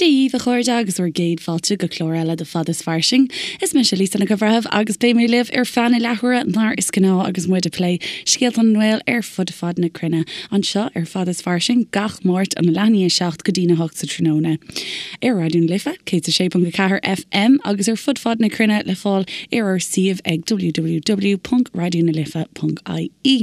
Dia dhaoibh a chairde agus bhur gcéad fáilte go clár eile de Fad is Fairsing. Is mise Lisa Nic an Bhreithimh agus beidh mé libh ar feadh na leathuaire mar is gnáth agus muid ag plé scéalta na nGael ar fud fad na cruinne anseo ar Fad is Fairsing gach Máirt óna leath i ndiaidh 7 go dtína 8 sa tráthnóna ar Raidió na Life 106.4 FM agus ar fud fad na cruinne le fáil ar ár suíomh ag www.raidionalife.ie.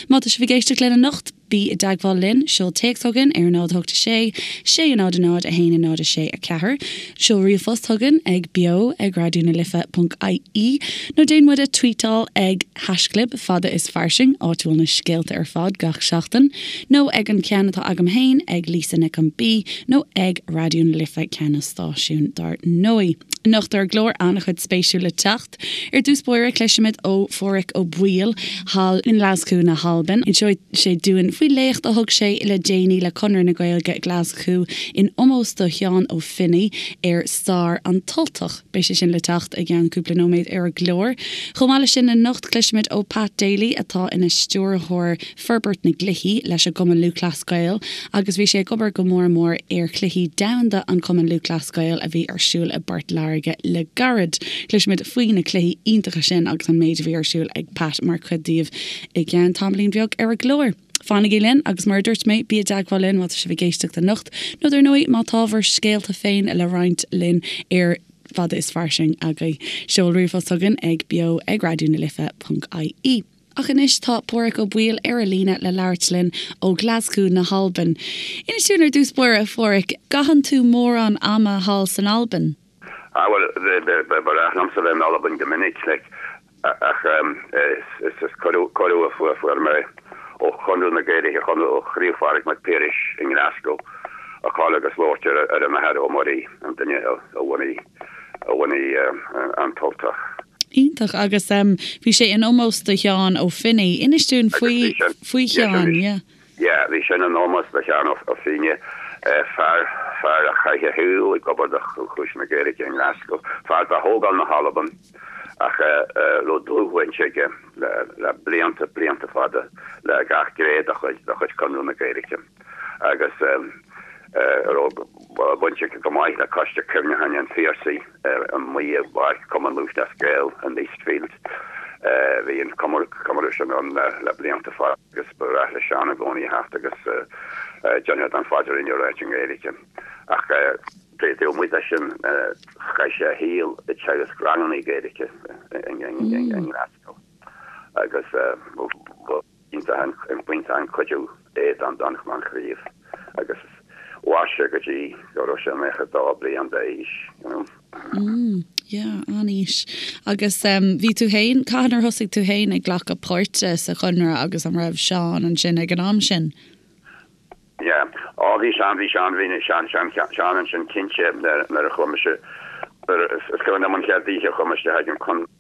Má tá sibh ag éisteacht linn anocht, Bí i dteagmháil linn, seol téacs chugainn ar 0 8 6 6 0 0 1 0 6 4, seol ríomhphost chugainn ag beo ag raidió na life ponc ie nó déan muid a tweetáil ag haischlib fada is fairsing, áit a bhfuil na scéalta ar fad gach seachtain, nó ag an ceann atá agam féin ag Lisa Nic an B nó ag Raidió na Life ceann an stáisiúin dár ndóigh. Anocht ar an gclár an-chuid spéisiúil le teacht. Ar dtús báire cloisfimid ó Phádhraic Ó Baoill thall i nGlaschú na hAlban. Inseoidh sé dúinn faoi léacht a thug sé le déanaí le Conradh na Gaeilge Glaschú in omós do Sheán Ó Finneadha ar stair an tUltach. Beidh sé sin le teacht i gceann cúpla nóiméad ar an gclár. Chomh maith leis sin anocht cloisfimid ó Pat Daly atá ina stiúrthóir forbairt na gcluichí leis an gCumann Lúthchleas Gael agus bhí sé ag obair go mór mór ar Chluichí Domhanda an Chumainn Lúthchleas Gael a bhí ar siúl i bPort Láirge le gairid. Cloisfimid faoi na cluichí iontacha sin agus an méid a bhí ar siúl ag Pat mar chuid díobh i gceann tamaillín bheag ar an gclár. Fanaigí linn agus mar a dúirt mé, bí i dteagmháil linn má tá sibh ag éisteacht anocht nó dar ndóigh má tá bhur scéalta féin le roinnt linn ar Fada is Fairsing agaibh. Seol ríomhphost chugainn ag beo ag raidió na life ponc ie. Ach anois tá Pádhraic Ó Baoill ar an líne le labhairt linn ó Ghlaschú na hAlban. Inis dúinn ar dtús báire, a Phádhraic, gcaitheann tú mórán ama thall san Albain? Ah bhuel, ba ghnách liomsa bheith in Albain go minic, like, ach is cuireadh a fuair mé ó Chonradh na Gaeilge, ó Chraobh Phádraig Mac Piarais i nGlasgow, a dhul agus labhairt ar an Athair Ó Muirí, an duine a bhunaigh a bhunaigh an tUltach. Iontach. Agus bhí sé in omós do Sheán Ó Finneadha. Inis dúinn faoi faoi Sheán, yeah. Yeah, bhí sin in omós do Sheán Ó Finneadha, fear fear a chaith a shaol ag obair do chúis na Gaeilge i nGlasgow, fear de thógáil na hAlban ach a raibh dlúthbhaint aige le le blianta, blianta fada le gach gné de chuid de chuid Conradh na Gaeilge agus a raibh baint aige go maith le Coiste Cuimhneacháin an Phiarsaigh. Amuigh i bPáirc Chumann Lúthchleas Gael in Eastfield. Bhí an comóradh sin ann le blianta fada agus ba ghnách le Seán i gcónaí a theacht agus déanamh den phaidrín a ráit i nGaeilge. Ach taobh amuigh de sin chaith sé a shaol ag teagasc ranganna Gaeilge i nGlasgow agus ba Iontach an cuidiú é don chraobh agus mhair sé go dtí go raibh sé 92 bliain d'aois, you know. Mm, yeah, an-aois. Agus bhí tú féin, cathain ar thosaigh tú féin ag glacadh páirte sa Chonradh agus an raibh Seán ansin ag an am sin? Yeah. Á, bhí Seán, bhí Seán, bhí Seán, Seán, Seán ansin cinnte nuair a chuaigh mise, nuair a, is cuimhin liom an chéad oíche a chuaigh mé isteach ag an Chonradh,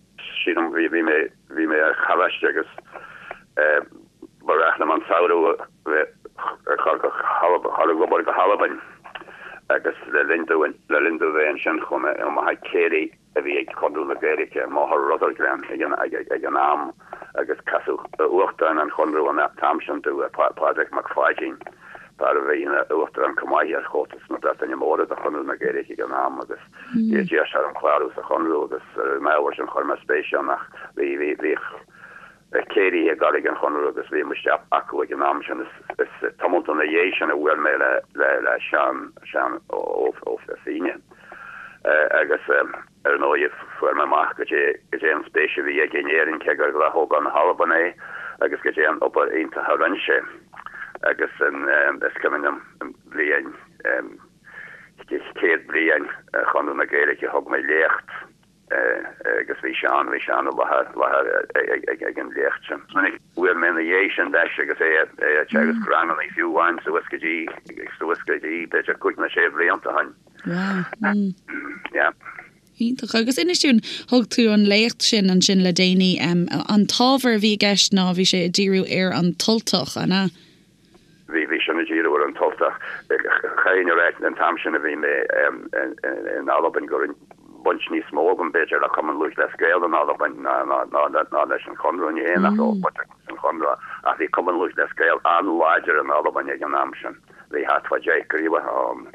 Sílim, bhí, bhí mé, bhí mé ar choláiste agus eh ba ghnách liom an samhradh a bheith ag dul go dhul ag obair go hAlbain agus le linn dúinn, le linn domh bheith ansin chuaigh mé amach ag céilí a bhí ag Conradh na Gaeilge i mBóthar Rutherglen ag an, ag, ag an am agus casadh Uachtarán an Chonradh an t-am sin domh, Pádraig Mac Pháidín, fear a bhí ina Uachtarán chomh maith ar Chomhaltas na Breataine Móire do Chonradh na Gaeilge ag an am agus D'iarr sé orm clárú sa Chonradh agus ar an ábhar sin chuir mé spéis ann ach bhí, bhí, bhíodh céilithe ag dul ag an Chonradh agus bhí mé isteach acu ag an am sin. Is, is tamalt ina dhiaidh sin a bhuail mé le, le, le Seán, Seán Ó, Ó Finneadha agus ar ndóigh fuair mé amach goidé, goidé an spéis a bhí aige in Éirinn cé gur de thógáil na hAlban é agus goidé an obair iontach a rinne sé agus an, is cuimhin liom an bhliain, 100 bliain Chonradh na Gaeilge thug mé léacht agus bhí Seán, bhí Seán i láthair, láthair ag an léacht sin. Bhuail mé ina dhiaidh sin leis agus é ag teagasc ranganna fiú amháin suas go dtí, suas go dtí b'fhéidir cúig nó sé bhlianta ó shin. Wow. Mm. Yeah. Iontach. Agus inis dúinn, thug tú an léacht sin ansin le déanaí, an t-ábhar a bhí i gceist ná bhí sé ag díriú ar an tUltach, an ea? Bhí, bhí sin ag díriú ar an tUltach. Chaithfinn a ráit, an t-am sin a bhí mé in Albain go raibh baint níos mó agam b'fhéidir le Cumann Lúthchleas Gael in Albain ná ná leis an Chonradh. Ní hé nach raibh baint agam leis an Chonradh ach bhí Cumann Lúthchleas Gael an-láidir in Albain ag an am sin. Bhí thart fá dheich gcraobhacha ann.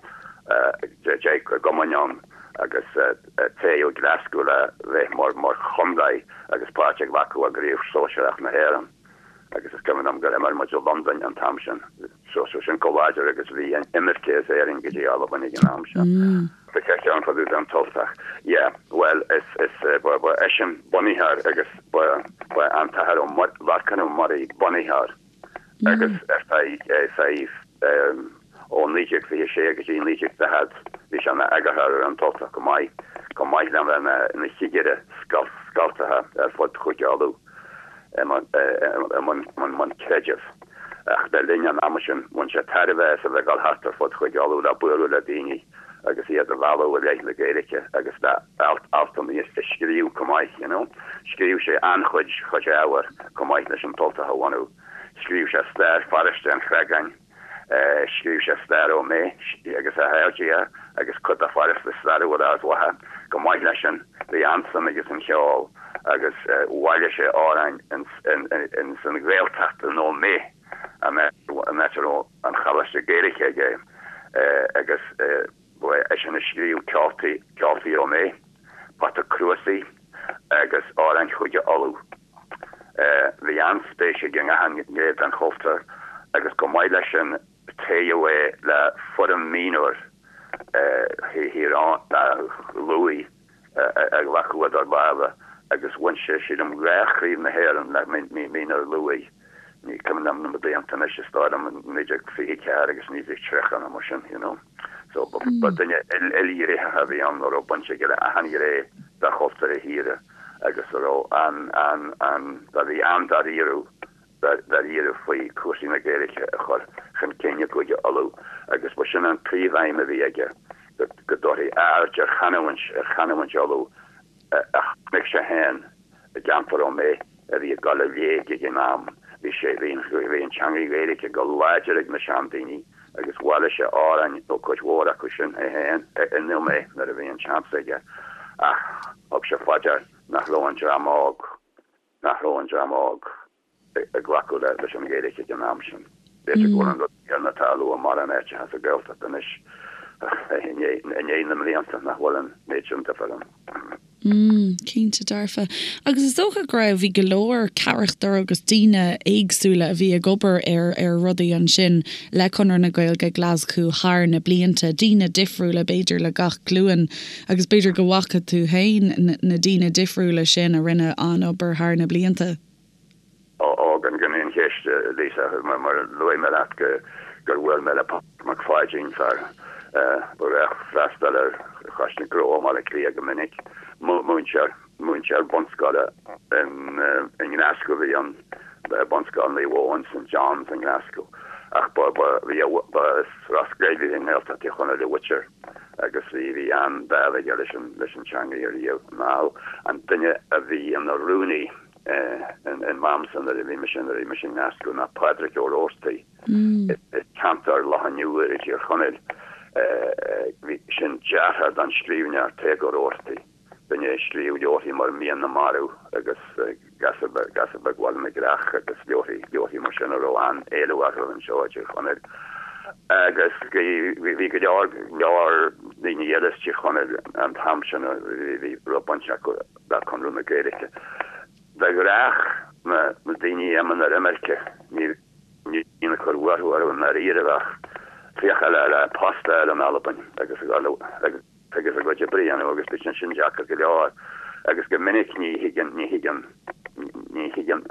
10 gcumainn ann agus toghadh Glaschú le bheith mar mar chontae agus páirt a ghlacadh i gCraobh Sóisearach na hÉireann agus is cuimhin liom gur imir muid i Londain an t-am sin. So so sin chomh láidir agus bhí an imirce as Éirinn go dtí Albain ag an am sin. Tá ceann fá dtaobh den Tultach. Yeah, bhuel is is ba ba eisean bunaitheoir agus ba ba an tAthair Ó Lorcán Ó Muirí bunaitheoir agus ar feadh ar feadh ó 1926 go dtí 1940 bhí sé ina eagarthóir ar an Tultach chomh maith, chomh maith le bheith ina chigire scoltacha ar fud Chúige Uladh i mbun creidimh. Ach le linn an ama sin bhain sé tairbhe as a bheith ag dul thart ar fud Chúige Uladh le bualadh le daoine agus iad a mhealladh i leith na Gaeilge agus le altanna a scríobh chomh maith, you know. Scríobh sé an-chuid chuid ábhair chomh maith leis an Tultach a bhunú. Scríobh sé stair pharóiste an Chreagáin, scríobh sé stair Ó Méith agus a chairde agus cuid de pharóiste stairiúil Ard Mhacha. Chomh maith leis sin, bhí an-suim aige san cheol agus bhailigh sé amhráin ins an Ghaeltacht in Ó Méith, an áit a raibh an Choláiste Gaeilge aige agus ba eisean a scríobh Ceoltaí, Ceoltaí Ó Méith, Pota Cruasaigh agus Amhráin Chúige Uladh. Bhí an-spéis aige i ngach gné den chultúr agus chomh maith leis sin toghadh é le foireann mionúir Thír Lúith a ghlacadh idir lámha agus bhain sé, sílim, 2 chraobh na hÉireann le mionúir Lúith. Ní cuimhin liom na blianta anois, is dóigh liom 1924 agus 1930 nó mar sin, you know. So ba duine ilghnéitheach a bhí ann a raibh baint aige le achan ghné de chultúr a thíre. agus a raibh an, an, an, a bhí an-dáiríre, dáiríre faoi chúrsaí na Gaeilge a chur chun cinn i gCúige Uladh agus ba sin an príomhaidhm a bhí aige, go, go dtabharfaí aird ar chanúint, ar chanúint Uladh a chonaic sé féin i gceantar Ó Méith a bhí ag dul i léig ag an am. Bhí sé, bhí an, bhí an teanga Ghaeilge go láidir ag na seandaoine agus bhailigh sé amhráin ó cuid mhór acu sin é féin in Ó Méith nuair a bhí an seans aige ach thug sé fá dear nach raibh an dream óg, nach raibh an dream óg ag glacadh leis an Ghaeilge ag an am sin. B'fhéidir go bhfuil an rud céanna ag tarlú i mórán áiteacha sa Ghaeltacht anois i ndiaidh na mblianta nach bhfuil an méid sin difear ann. Mm, cinnte dearfa. Agus is dócha go raibh, bhí go leor carachtar agus daoine éagsúla a bhí ag obair ar, ar rudaí ansin le Conradh na Gaeilge Glaschú thar na blianta, daoine difriúla b'fhéidir le gach glúin agus b'fhéidir go bhfaca tú féin na daoine difriúla sin a rinne an-obair thar na blianta. Ó, gan aon cheist, Lisa, mar a luaigh mé leat gur bhuail mé le Pádraig Mac Pháidín, fear ba ghnách freastal ar Choiste Gnó i mBaile Átha Cliath go minic, múinteoir, múinteoir bunscoile i nGlaschú a bhí ann, Bunscoil Naomh Eoin, St John's i nGlaschú, ach ba, ba, bhí a, ba as Ros Goill i nGaeltacht Thír Chonaill a mhuintir agus bhí, bhí an-dáimh aige leis an, leis an teanga riamh anall. An duine a bhí ina rúnaí in m'amsa nuair a bhí mise nuair a bhí mise i nGlaschú ná Pádraig Ó Rabhartaigh as ceantar Loch an Iúir i dTír Chonaill. Bhí sin deartháir don scríbhneoir Tadhg Ó Rabhartaigh, duine a scríobh leabharthaí mar Mian na Marbh agus Gasúr Beag Bhaile na gCreach agus leabharthaí leabharthaí mar sin a raibh an-éileamh orthu anseo i dTír Chonaill. Agus bhí go leor leor daoine eile as Tír Chonaill an t-am sin a bhí raibh baint acu le Conradh na Gaeilge. De ghnách, na daoine a imíonn ar imirce, ní bhíonn ag cur fuathu orthu i ndáiríre ach féacháil le post a fháil in Albain agus a dhul agus a gcuid oibre a dhéanamh agus bíonn sin deacair go leor agus go minic ní thigeann, ní thigeann, ní thigeann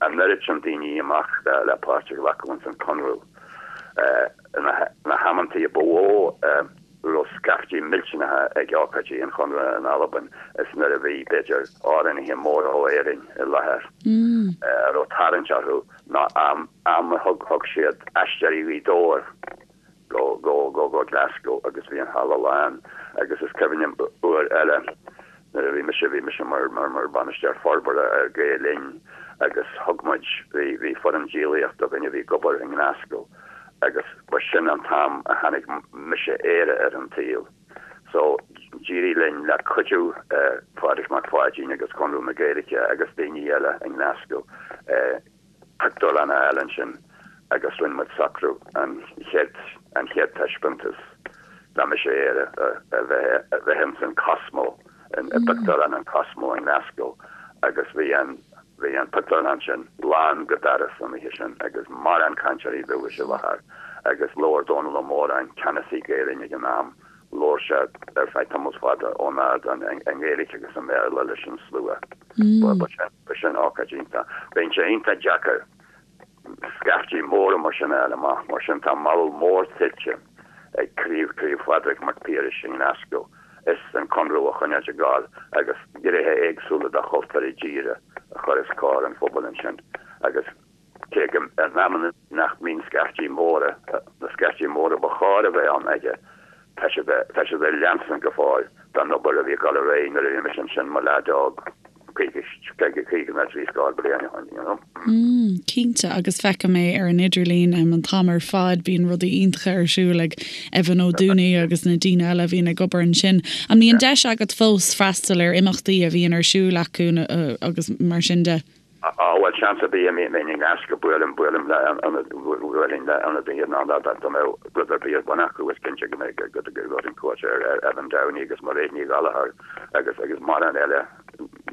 an oiread sin daoine amach le páirt a ghlacadh ins an Conradh. Na hamantaí a ba mhó a raibh scaiftí millteanacha ag ócáidí an Chonradh in Albain is nuair a bhí, b'fhéidir, amhránaithe móra ó Éirinn i láthair a raibh tarraingt orthu ná am a thug siad Aisteoirí Ghaoth Dobhair go, go, go, go Glasgow agus bhí an halla lán agus is cuimhin liom uair eile nuair a bhí mise, bhí mise mar, mar, mar bhainisteoir forbartha ar Gael Linn agus thug muid, bhí, bhí foireann díolaíochta againn a bhí ag obair i nGlasgow agus ba sin an t-am a tháinig Mise Éire ar an tsaol. So d'éirigh linn le cuidiú Phádraig Mac Pháidín agus Conradh na Gaeilge agus daoine eile i nGlasgow, pictiúrlann a fháil ansin agus rinne muid socrú an chéad an chéad taispeántas. Dá mise air a bheith a bheith ins an Cosmo, i bpictiúrlann an Cosmo i nGlasgow agus bhí an bhí an pictiúrlann sin lán go doras an oíche sin agus mórán cainteoirí dúchais i láthair agus labhair Dónall Ó Móráin, ceannasaí Gael Linn ag an am, labhair sé ar feadh tamall fada ón ardán i nGaeilge agus i mBéarla leis an slua. Ba sin ba sin ócáid iontach. Bíonn sé iontach deacair scaiftí móra mar sin a fháil amach, mar sin tá moladh mór tuillte ag Craobh Craobh Phádraig Mac Piarais i nGlasgow is an Conradh a choinneáilt ag gabháil agus gnéithe éagsúla de chultúr a dtíre a chur os comhair an phobail ansin agus cé go in amanna nach mbíonn scaiftí móra, na scaiftí móra ba chóir a bheith ann aige, tá siad tá siad ag leanstan go fóill den obair a bhí ag dul ar aghaidh nuair a bhí mise ansin mo leaid óg. 50 nó 30 bliain ó shin, you know. Mm, cinnte, agus feicim é ar an idirlíon an t-am ar fad, bíonn rudaí iontacha ar siúl ag Evan Ó Dúnaí agus na daoine eile a bhíonn ag obair ansin. An mbíonn deis agat fós freastal ar imeachtaí a bhíonn ar siúl acu agus mar sin de? Á, bhuel, seans ar bith, bheinn i nGlasgow, buailim, buailim le ionad, bhuailfinn le ionadaithe ná dá mbeadh rud ar bith ar bun acu, is cinnte go mbeidh, go dtabharfainn cuairt ar Evan Downey agus Mairéad Ní Ghallchóir agus, agus mórán eile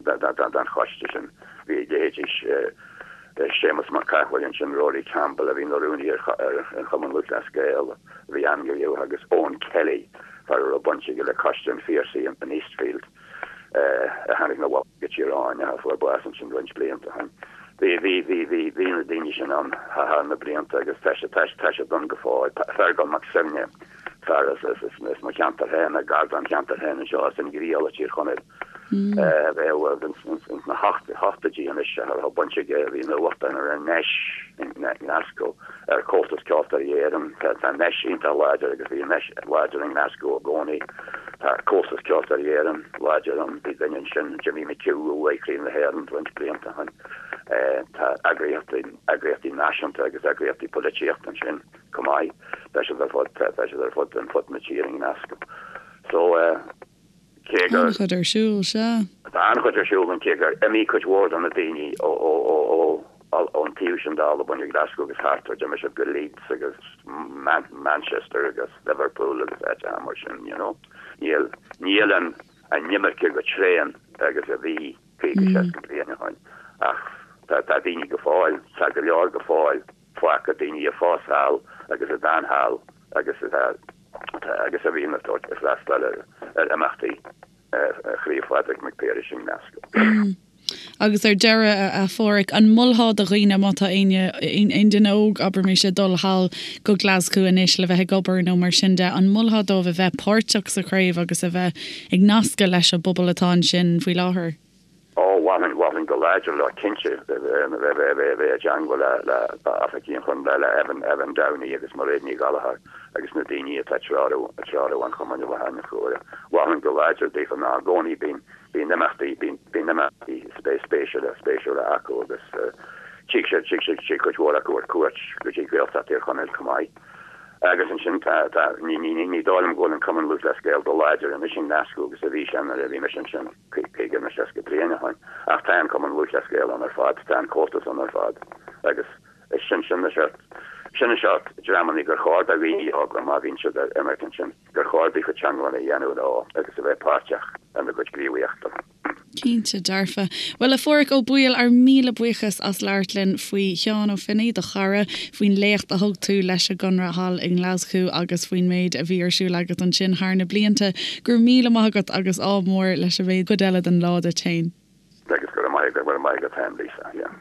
den choiste sin. Bhí leithéidí Séamus Mac Cathmhaoil ansin, Rory Campbell a bhí ina rúnaí ar an Chumann Lúthchleas Gael, a bhí an-ghníomhach, agus Eoin Kelly, fear a raibh baint aige le Coiste an Phiarsaigh in Eastfield, a tháinig 'na bhaile go Tír Eoghain, a fuair bás ansin roinnt blianta ó shin. Bhí, bhí, bhí, bhí, bhí na daoine sin ann thar na blianta agus tá siad, tá siad ann go fóill. Feargal Mac Suibhne, fear as, as, as mo cheantar féin, gar dom cheantar féin anseo, as an nGriallach i dTír Chonaill. Bheadh ins na hochtóidí anois a raibh baint aige, a bhí ina uachtarán ar an nDeis i nGlasgow, ar Chomhaltas Ceoltóirí Éireann. Tá an Deis iontach láidir agus bhí an Deis láidir i nGlasgow i gcónaí. Tá Comhaltas Ceoltóirí Éireann láidir ann. Bhí duine ansin, Jimmy McHugh, a bhuaigh Craobh na hÉireann roinnt blianta ó shin. Tá eagraíochtaí, eagraíochtaí náisiúnta agus eagraíochtaí polaitíochta ansin chomh maith. Tá siad ar fud, tá siad ar fud, ar fud na tíre i nGlasgow. So, Cé gur. An-chuid ar siúl, sea. Tá an-chuid ar siúl ann, cé gur imigh cuid mhór de na daoine ón taobh sin d'Albain, i Glasgow agus thart air, d'imigh siad go Leeds agus Manchester agus Liverpool agus áiteacha mar sin, you know. Níl, níl an imirce chomh tréan agus a bhí 50, 60 bliain ó shin ach tá daoine go fóill, tá go leor go fóill fágtha, daoine a phós thall agus a d'fhan thall agus atá. agus a bhíonn ag tabhairt ag freastal ar imeachtaí Chraobh Phádraig Mac Piarais i nGlasgow. Agus ar deireadh, a Pháraic, an molfá do dhaoine, má tá éinne, aon duine óg, abraimis, ag dul thall go Glasgow anois le bheith ag obair nó mar sin de, an molfá dóibh a bheith páirteach sa chraobh agus a bheith ag nascadh leis an bpobal atá ansin faoi láthair? Ó, mholfainn, mholfainn go láidir leo, cinnte, bheith, bheith, bheith i dteangmháil le, le oifigigh an Chontae, le Evan, Evan Downey agus Mairéad Ní Ghallchóir agus na daoine atá ag treorú, ag treorú an chumainn i láthair na huaire. Mholfainn go láidir daofa ná i gcónaí bíonn, bíonn imeachtaí, bíonn, bíonn imeachtaí spéisiúla, spéisiúla acu agus tig siad, tig siad, tig cuid mhór acu ar cuairt go dtí Gaeltacht Thír Chonaill chomh maith. Agus ansin tá, tá, ní, ní, ní dóigh liom go bhfuil an Cumann Lúthchleas Gael chomh láidir anois i nGlasgow agus a bhí sé nuair a bhí mise ansin. 50 nó 60 bliain ó shin, ach tá an Cumann Lúthchleas Gael ann ar fad, tá an Comhaltas ann ar fad agus is sin, sin na seort, sin na seort dreamanna gur chóir do dhaoine óga má bhíonn siad ar imirce ansin, gur chóir daofa teangmháil a dhéanamh leo agus a bheith páirteach ina gcuid gníomhaíochta. Cinnte dearfa. Bhuel, a Pháraic Ó Baoill, ár míle buíochas as labhairt linn faoi Sheán Ó Finneadha, do chara, faoin léacht a thug tú leis an gConradh thall i nGlaschú agus faoin méid a bhí ar siúl agat ansin thar na blianta. Go raibh míle maith agat agus ádh mór leis an gcuid eile den lá duit féin. Agus go raibh maith agat, go raibh maith agat féin Lisa, yeah.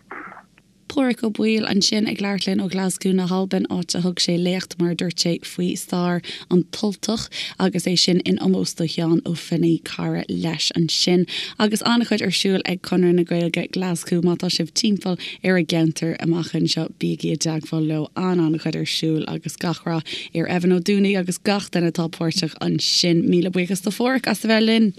Páraic Ó Baoill ansin ag labhairt linn ó Ghlaschú na hAlban, áit a thug sé léacht, mar a dúirt sé, faoi stair an tUltach agus é sin in omós do Sheán Ó Finneadha, cara leis ansin. Agus an-chuid ar siúl ag Conradh na Gaeilge Glaschú, má tá sibh timpeall ar an gceantar amach anseo, bígí i dteagmháil leo, an-an-chuid ar siúl agus gach rath ar Evan Ó Dúnaí agus gach duine atá páirteach ansin. Míle buíochas do Pháraic as a bheith linn.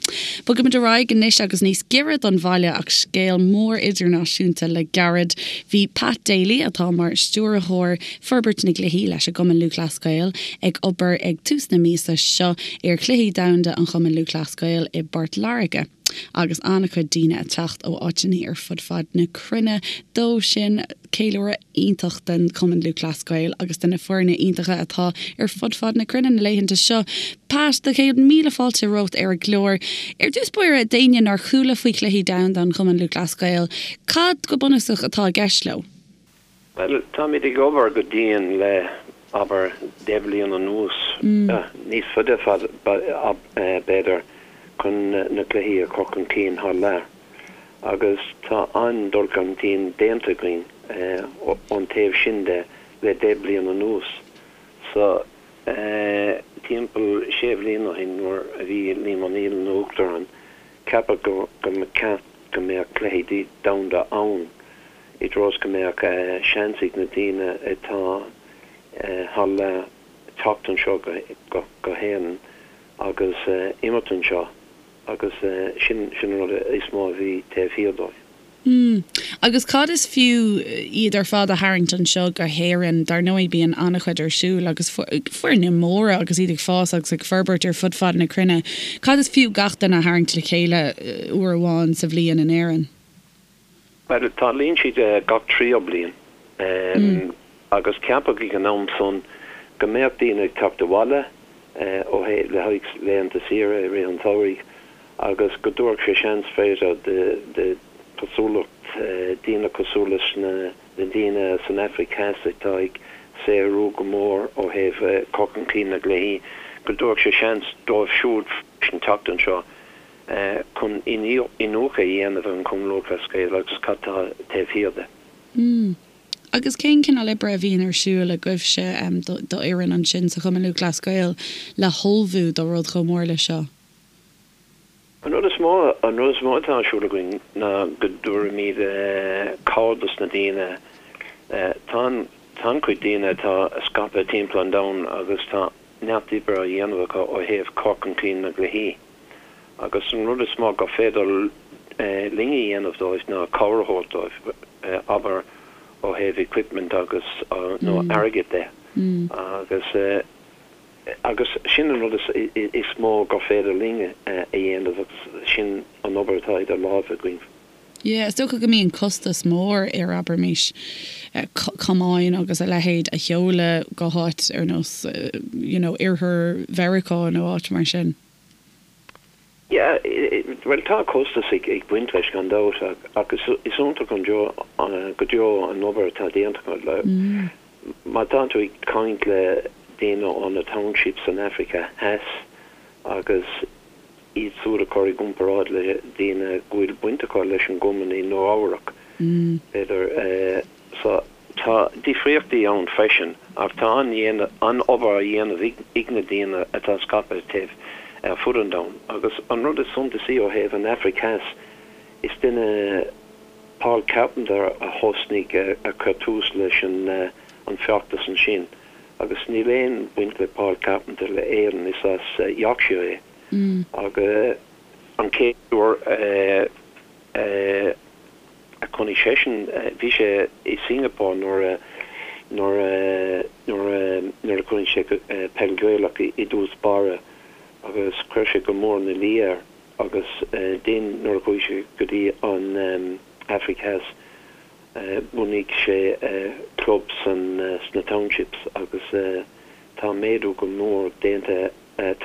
Bogaimid ar aghaidh anois agus níos giorra don bhaile ach scéal mór idirnáisiúnta le gairid. Bhí Pat Daly, atá mar Stiúrthóir Forbairt na gCluichí leis an gCumann Lúthchleas Gael, ag obair ag tús na míosa seo ar Chluichí Domhanda an Chumainn Lúthchleas Gael i bPort Láirge. Agus an-chuid daoine ag teacht ó áiteanna ar fud fad na cruinne dó sin. Ceiliúradh iontach den Chumann Lúthchleas Gael agus de na foirne iontacha atá ar fud fad na cruinne na laethanta seo. Pat, do chéad míle fáilte romhat ar an gclár. Ar dtús báire, d'éinne nár chuala faoi Chluichí Domhanda an Chumainn Lúthchleas Gael, cad go bunúsach atá i gceist leo? Bhuel, táimid ag obair go dian le, abair, 10 bhliain anuas, níos faide b'fhéidir, chun na cluichí a chur chun cinn thar lear. Agus tá an-dul chun cinn déanta againn ón taobh sin de le 10 bliain anuas. So, timpeall sé bhliain ó shin nuair a bhí Liam O'Neill ina Uachtarán, ceapadh go mba cheart go mbeadh cluichí domhanda ann. i dtreo is go mbeadh seans ag na daoine atá thar lear teacht anseo go hÉirinn agus imirt anseo agus sin an rud is mó a bhí taobh thiar dóibh. Mm. Agus cad is fiú iad ar fad a tharraingt anseo go hÉirinn? Dar ndóigh bíonn an-chuid ar siúl agus foirne móra agus iad ag fás agus ag forbairt ar fud fad na cruinne. Cad is fiú gach duine a tharraingt le chéile uair amháin sa bhliain in Éirinn? Bhuel, tarlaíonn siad gach tríú bliain agus ceapadh ag an am san go mbeadh daoine ag teacht abhaile ó le haghaidh laethanta saoire i rith an tsamhraidh agus go dtabharfadh sé seans b'fhéidir de chosúlacht daoine cosúil leis na daoine san Afraic Theas atá ag saothrú go mór ó thaobh cur chun cinn na gcluichí, go dtabharfadh sé seans dóibh siúd freisin teacht anseo. chun iniúchadh a dhéanamh ar an Chumann Lúthchleas Gael agus cad tá taobh thiar de. Mm. Agus cén cineál oibre a bhíonn ar siúl agaibhse, d'fhoireann ansin sa Chumann Lúthchleas Gael le hullmhú do rud chomh mór leis seo? An rud is mó, an rud is mó atá ar siúl againn ná go dtabharfaimid cabhair dos na daoine. Tá an, tá an-chuid daoine atá scaipthe timpeall an domhain agus tá neart oibre á dhéanamh acu ó thaobh cur chun cinn na gcluichí. Agus an rud is mó gur féidir linn a dhéanamh dóibh ná cabhair a thabhairt dóibh, abair ó thaobh equipment agus, nó airgead de. Agus, agus sin an rud is mó gur féidir linn a dhéanamh agus sin an obair atá idir lámha againn. Yeah, is dócha go mbíonn costas mór ar, abraimis, camáin agus a leithéid a sheoladh go háit ar nós, you know, oirthear Mheiriceá nó áit mar sin. Yeah, bhuel tá costas ag baint leis gan dabht ach is iontach an go deo an obair atá déanta acu. Má tá tú ag caint le daoine ó na townships san Afraic Theas agus iad siúd a chur i gcomparáid le daoine go bhfuil baint acu leis an gcumann i Nua Eabhrac, b'fhéidir. So, tá difríochtaí ann freisin ach tá an-obair á dhéanamh ag na daoine atá scaipthe taobh ar fud an domhain. Agus an rud is suntasaí ó thaobh an Afraic Theas, is duine, Paul Carpenter, a thosnaigh, a chuir tús leis an feachtas ansin. Agus níl aon bhaint le Paul Carpenter le Éirinn, is as Yorkshire é. Agus an chéad uair a a chonaic seisean, bhí sé i Singapore nuair a nuair a nuair a nuair a chonaic sé peil Ghaelach i dtús báire agus chuir sé go mór ina luí air agus then nuair a chuaigh sé go dtí an Afraic Theas bhunaigh sé club san sna townships agus tá méadú go mór déanta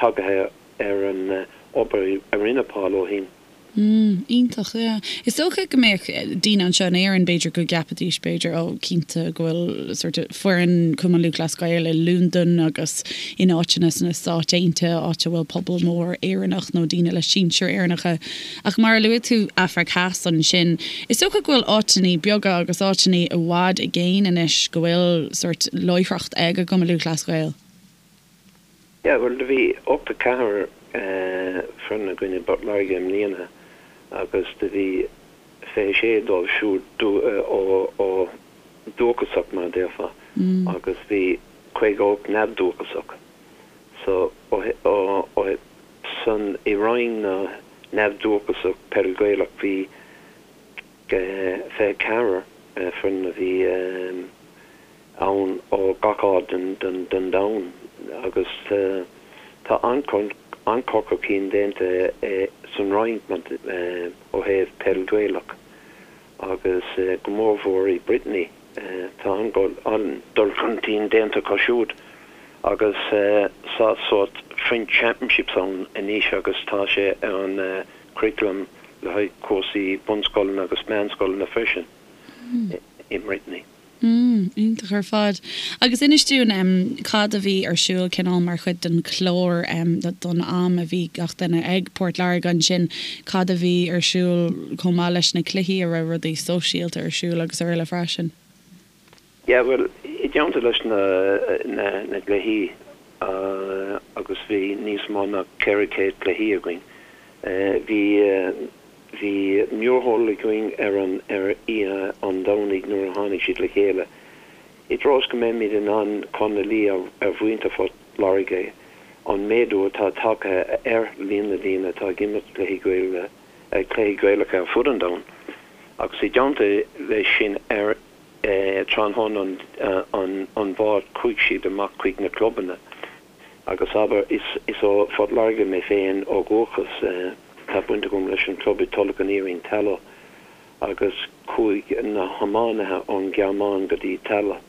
tagaithe ar an obair a rinne Paul ó shin. Mm, iontach, yeah. Is dócha go mbeadh daoine anseo in Éirinn, b'fhéidir, go gceapfaidís, b'fhéidir, oh, cinnte go bhfuil sort of foireann Chumann Lúthchleas Gael i Londain agus in áiteanna sna Stáit Aontaithe, áit a bhfuil pobal mór Éireannach nó daoine le sinsir Éireannacha. Ach mar a luaigh tú Afraic Theas ansin, is dócha go bhfuil áiteanna beaga agus áiteanna i bhfad i gcéin anois go bhfuil sort láithreacht ag an gCumann Lúthchleas Gael. Yeah, bhuel do bhí 84 foireann againn i bPort Láirge i mbliana agus do bhí 26 dóibh siúd ó dúchasach mar a déarfá agus bhí 58 neamhdhúchasach. So ó san i roinn na neamhdhúchasach peil Gaelach bhí 24 foireann a bhí ann ó gach áit den domhan agus tá an-chur an-chur chun cinn déanta san Fhrainc ó thaobh peil Ghaelach agus go mórmhór i Brittany. Tá an-dul chun cinn déanta acu siúd agus tá sórt French Championships ann anois agus tá sé ar an curriculum le haghaidh cúrsaí bunscoileanna agus meánscoileanna freisin i mBrittany. Mm, iontach ar fad. Agus inis dúinn em cad a bhí ar siúl cineál mar chuid den chlár em don am a bhí gach duine ag Port Láirge ansin, cad a bhí ar siúl chomh maith leis na cluichí, an raibh rudaí sóisialta ar siúl agus araile freisin? Yeah, bhuel, i dteannta leis na na na gcluichí agus bhí níos mó ná 400 cluichí againn, bhí Bhí mórshiúl againn ar an ar oíche an Domhnaigh nuair a tháinig siad le chéile. I dtreo is go mbeimid in ann cur ina luí ar mhuintir Phort Láirge an méadú atá tagtha ar líon na ndaoine atá ag imirt cluichí Gaeilge, cluichí Gaelacha ar fud an domhain. Agus i dteannta leis sin ar tráthnóna an an Mháirt chuaigh siad amach chuig na clubanna. Agus abair, is ó Phort Láirge mé féin ó dhúchas, tá baint agam leis an club i Tulach an Iarainn, Tallaght, agus chuaigh na hiománaithe ón Ghearmáin go dtí Tallaght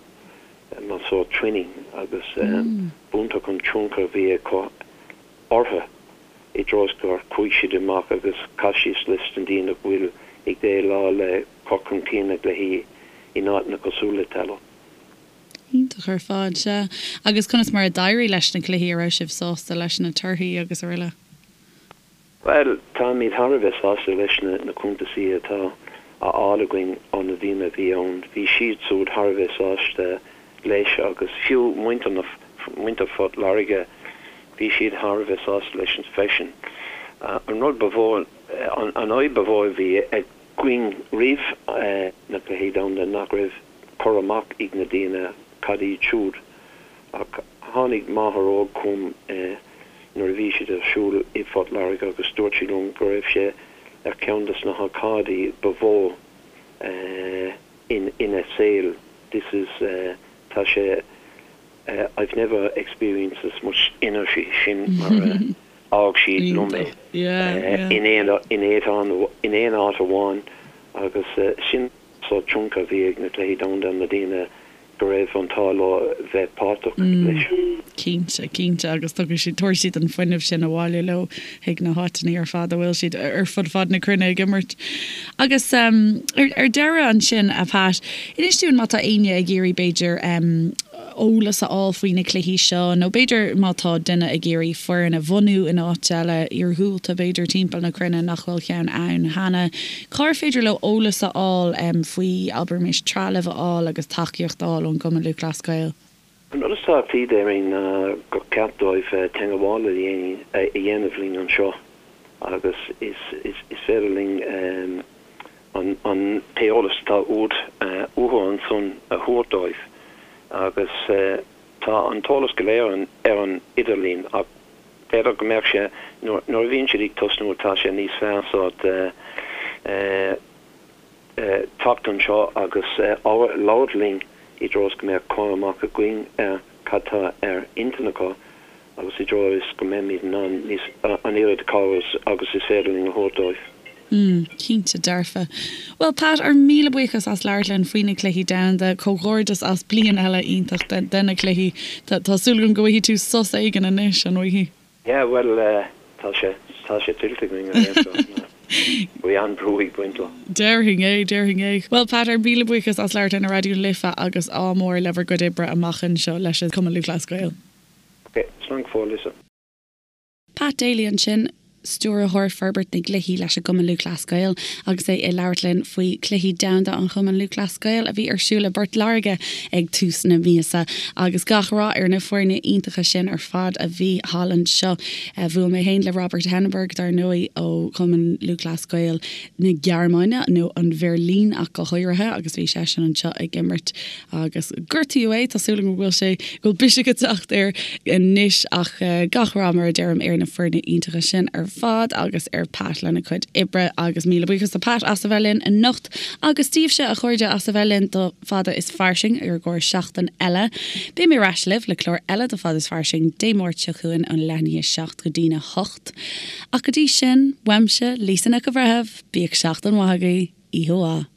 mar sórt twinning agus b'iontach an tionchar a bhí acu orthu i dtreo is gur chuaigh siad amach agus chas siad leis na daoine a bhfuil ag déileáil le cur chun cinn na gcluichí in áiteanna cosúil le Tallaght. Iontach ar fad, sea. Agus conas mar a d'éirigh leis na cluichí, a raibh sibh sásta leis na torthaí agus araile? Bhuel, táimid thar a bheith sásta leis na cuntasaí atá á fháil againn ó na daoine a bhí ann. Bhí siad siúd thar a bheith sásta leis agus fiú muintir na, muintir Phort Láirge, bhí siad thar a bheith sásta leis freisin. An rud ba mhó, an fhadhb ba mhó a bhí againn roimh na Cluichí Domhanda nach raibh cur amach ag na daoine cad iad siúd ach tháinig máthair óg chugam nuair a bhí siad ar siúl i bPort Láirge agus dúirt sí liom go raibh sé ar cheann des na hócáidí ba mhó ina saol this is tá sé I've never experienced as much energy sin mar a fhág sí liom é in aon áit amháin agus sin sórt tionchar a bhí ag na Cluichí Domhanda ar na daoine go raibh an t-ádh leo bheith páirteach leis. Cinnte, cinnte, agus tabharfaidh siad, tabharfaidh siad an fuinneamh sin abhaile leo chuig na háiteanna ar fad a bhfuil siad ar fud fad na cruinne ag imirt. Agus ar deireadh ansin, a Pat, inis dúinn má tá éinne ag iarraidh b'fhéidir eolas a fháil faoi na cluichí seo nó b'fhéidir má tá duine ag iarraidh foireann a bhunú in áit eile iargúlta b'fhéidir timpeall na cruinne nach bhfuil ceann ann cheana, cár féidir leo eolas a fháil faoi, abraimis, trealamh a fháil agus tacaíocht a fháil ón gCumann Lúthchleas Gael? An rud is tábhachtaí déarfainn ná gur ceart dóibh teagmháil a dhéanamh linn anseo agus is féidir linn an t-eolas atá uathu ansan a thabhairt dóibh agus tá an t-eolas go léir ar an idirlíon ach b'fhéidir go mbeadh sé, nuair a bhíonn siad ag tosnú tá sé níos fearr sórt teacht anseo agus labhairt linn i dtreo is go mbeadh cur amach againn ar cad tá ar intinn acu agus i dtreo is go mbeimid in ann níos, an oiread cabhair agus is féidir linn a thabhairt dóibh. Mm, cinnte dearfa. Bhuel Pat, ár míle buíochas as labhairt linn faoi na Cluichí Domhanda. Comhghairdeas as bliain eile iontach de na cluichí. Tá súil agam go bhfaighidh tú sos éigin anois, an bhfaighidh? Yeah, bhuel, tá sé, tá sé tuillte againn ar aon chor. Bhí an-bhrú ag baint leo. Déarfainn é, déarfainn é. Bhuel Pat, ár míle buíochas as labhairt linn ar Raidió na Life agus ádh mór le bhur gcuid oibre amach anseo leis an Cumann Lúthchleas Gael. Ok, slán go fóill Lisa. Pat Daly ansin, Stiúrthóir Forbairt na gCluichí leis an gCumann Lúthchleas Gael agus é ag labhairt linn faoi Chluichí Domhanda an Chumainn Lúthchleas Gael a bhí ar siúl i bPort Láirge ag tús na míosa. Agus gach rath ar na foirne iontacha sin ar fad a bhí thall anseo. Bhuail mé féin le Robert Henneberg dar ndóigh ó Chumann Lúthchleas Gael na Gearmáine, nó an Bheirlín ach go háirithe, agus bhí seisean anseo ag imirt Agus gortaíodh é, tá súil agam go bhfuil sé, go bhfuil biseach ag teacht air anois ach gach rath mar a deirim ar na foirne iontacha sin ar. fad agus ar Pat lena cuid oibre agus míle buíochas do Pat as a bheith linn anocht agus daoibhse a chairde as a bheith linn do Fada is Fairsing ar an gcóir seachtain eile. Beidh mé ar ais libh le clár eile de Fada is Fairsing Dé Máirt seo chugainn ón leath i ndiaidh 7 go dtína 8. Ach go dtí sin, uaimse, Lisa Nic an Bhreithimh, bíodh seachtain mhaith agaibh, oíche mhaith.